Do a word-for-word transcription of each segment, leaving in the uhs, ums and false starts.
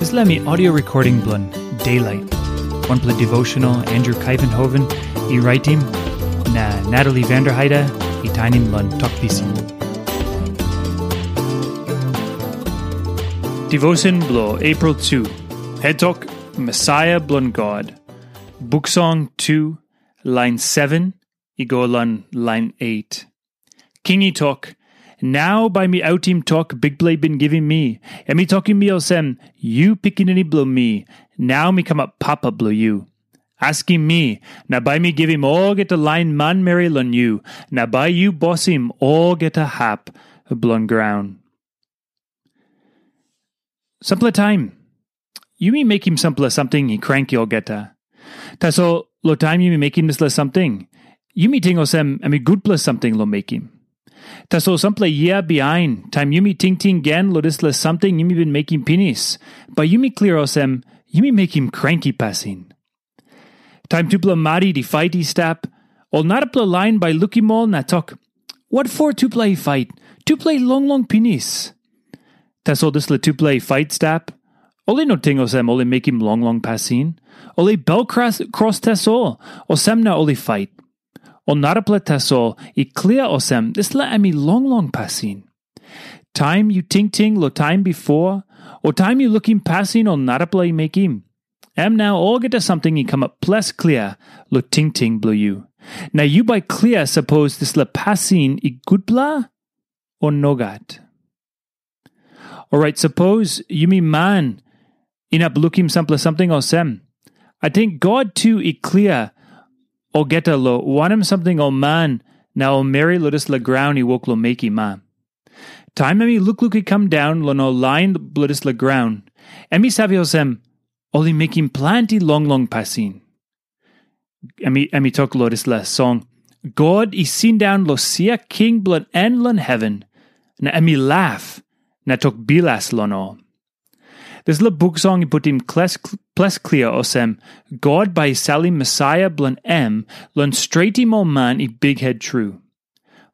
Dispela mi audio recording bilong Daylight. Wanpela devotional Andrew Kaivenhoven i raitim, na Natalie Vanderheide i tainim long Tok Pisin. Devotion bilong April two. Head Tok, Messiah bilong God. Buksong two, lain seven i go long lain eight. King i tok, "Nau bai mi autim tok Bikpela i bin givim mi. Em i tokim mi olsem, 'Yu pikinini bilong mi, nau mi kamap papa bilong yu. Askim mi, na bai mi givim olgeta lain manmeri long yu, na bai yu bosim olgeta hap bilong graun.'" Sampela taim, yumi mekim sampela samting i kranki olgeta. Tasol, long taim yumi mekim dispela samting, yumi ting olsem em i gutpela samting long mekim. Tasol sampela yia bihain, taim yumi tingting gen long dispela samting yumi bin mekim pinis, bai yumi klia olsem, yumi mekim kranki pasin. Taim tupela marit i fait i stap, ol narapela lain bai lukim ol na tok, "Wat for tupela i fait? Tupela i longlong pinis." Tasol dispela tupela i fait stap, ol i no ting olsem ol i mekim longlong pasin. Ol i bel kros, kros tasol, olsem na ol i fait. Ol narapela tasol i klia olsem dispela em i longlong pasin. Taim yu tingting long taim bipo, o taim yu lukim pasin ol narapela i mekim, em nau olgeta samting i kamap ples klia long tingting bilong yu. Na yu bai klia sapos dispela pasin i gutpela o nogat. Orait, sapos yumi man inap lukim sampela samting olsem, ating God tu i klia olgeta long wanem samting ol man na ol meri long dispela graun i wok long mekim, a? Taim em i lukluk i kam daun long ol lain bilong dispela graun, em i save olsem, ol i mekim planti longlong pasin. Em i, em i tok long dispela song, "God i sindaun long sia king bilong en long heven, na em i laf, na tok bilas long ol." Dispela buk song i putim kles-, ples klia olsem, God bai i salim Mesaia bilong em long stretim ol man i bikhet tru.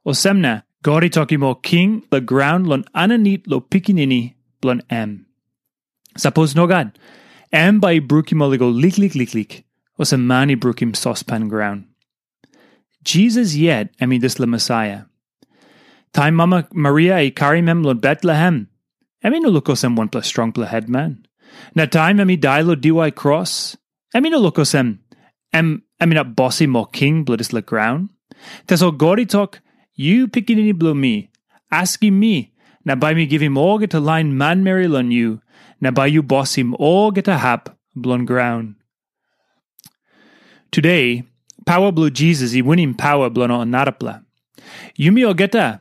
Olsem na, God i tokim ol king long graun long aninit long pikinini bilong em. Sapos nogat, em bai i brukim ol i go liklik liklik, olsem man i brukim sospan graun. Jisas yet em i dispela Mesaia. Taim mama Maria i karim em long Betlehem, em i no luk olsem wanpela strongpela hetman. Na taim em i dai long diwai kros, em i no luk olsem em, em inap bosim ol king bilong dispela graun. Tasol God i tok, "Yu pikinini bilong mi, askim mi, na bai mi givim olgeta lain manmeri long yu, na bai yu bosim olgeta hap bilong graun." Tude, paua bilong Jisas i winim paua bilong ol narapela. Yumi olgeta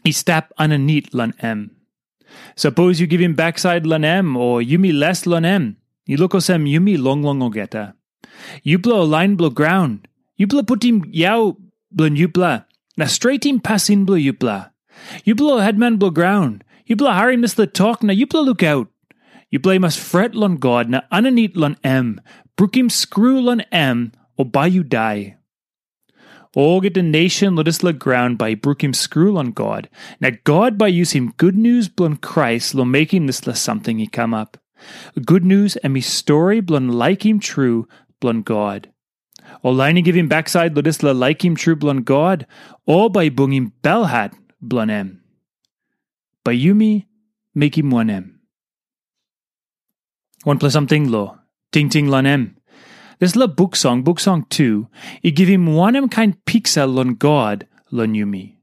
i stap aninit long em. Sapos yu givim baksait long em, o yumi les long em, i luk olsem yumi longlong olgeta. Yupela ol lain bilong graun, yupela putim yau bilong yupela, na stretim pasin bilong yupela. Yupela ol hetman bilong graun, yupela harim dispela tok na yupela lukaut. Yupela i mas fret long God na aninit long em, brukim skru long em, o bai yu dai. Olgeta nation long dispela graun bai i brukim skru long God, na God bai i yusim gutnius bilong Krais long mekim dispela samting i kamap. Gutnius em i stori bilong laikim tru bilong God. Ol lain i givim baksait long dispela laikim tru bilong God, ol bai i bungim belhat bilong em. Bai yumi mekim wanem? Wanpela samting lo, tingting long em. Dispela buk song, buk song tu, i givim wanem kain piksa long God long yumi.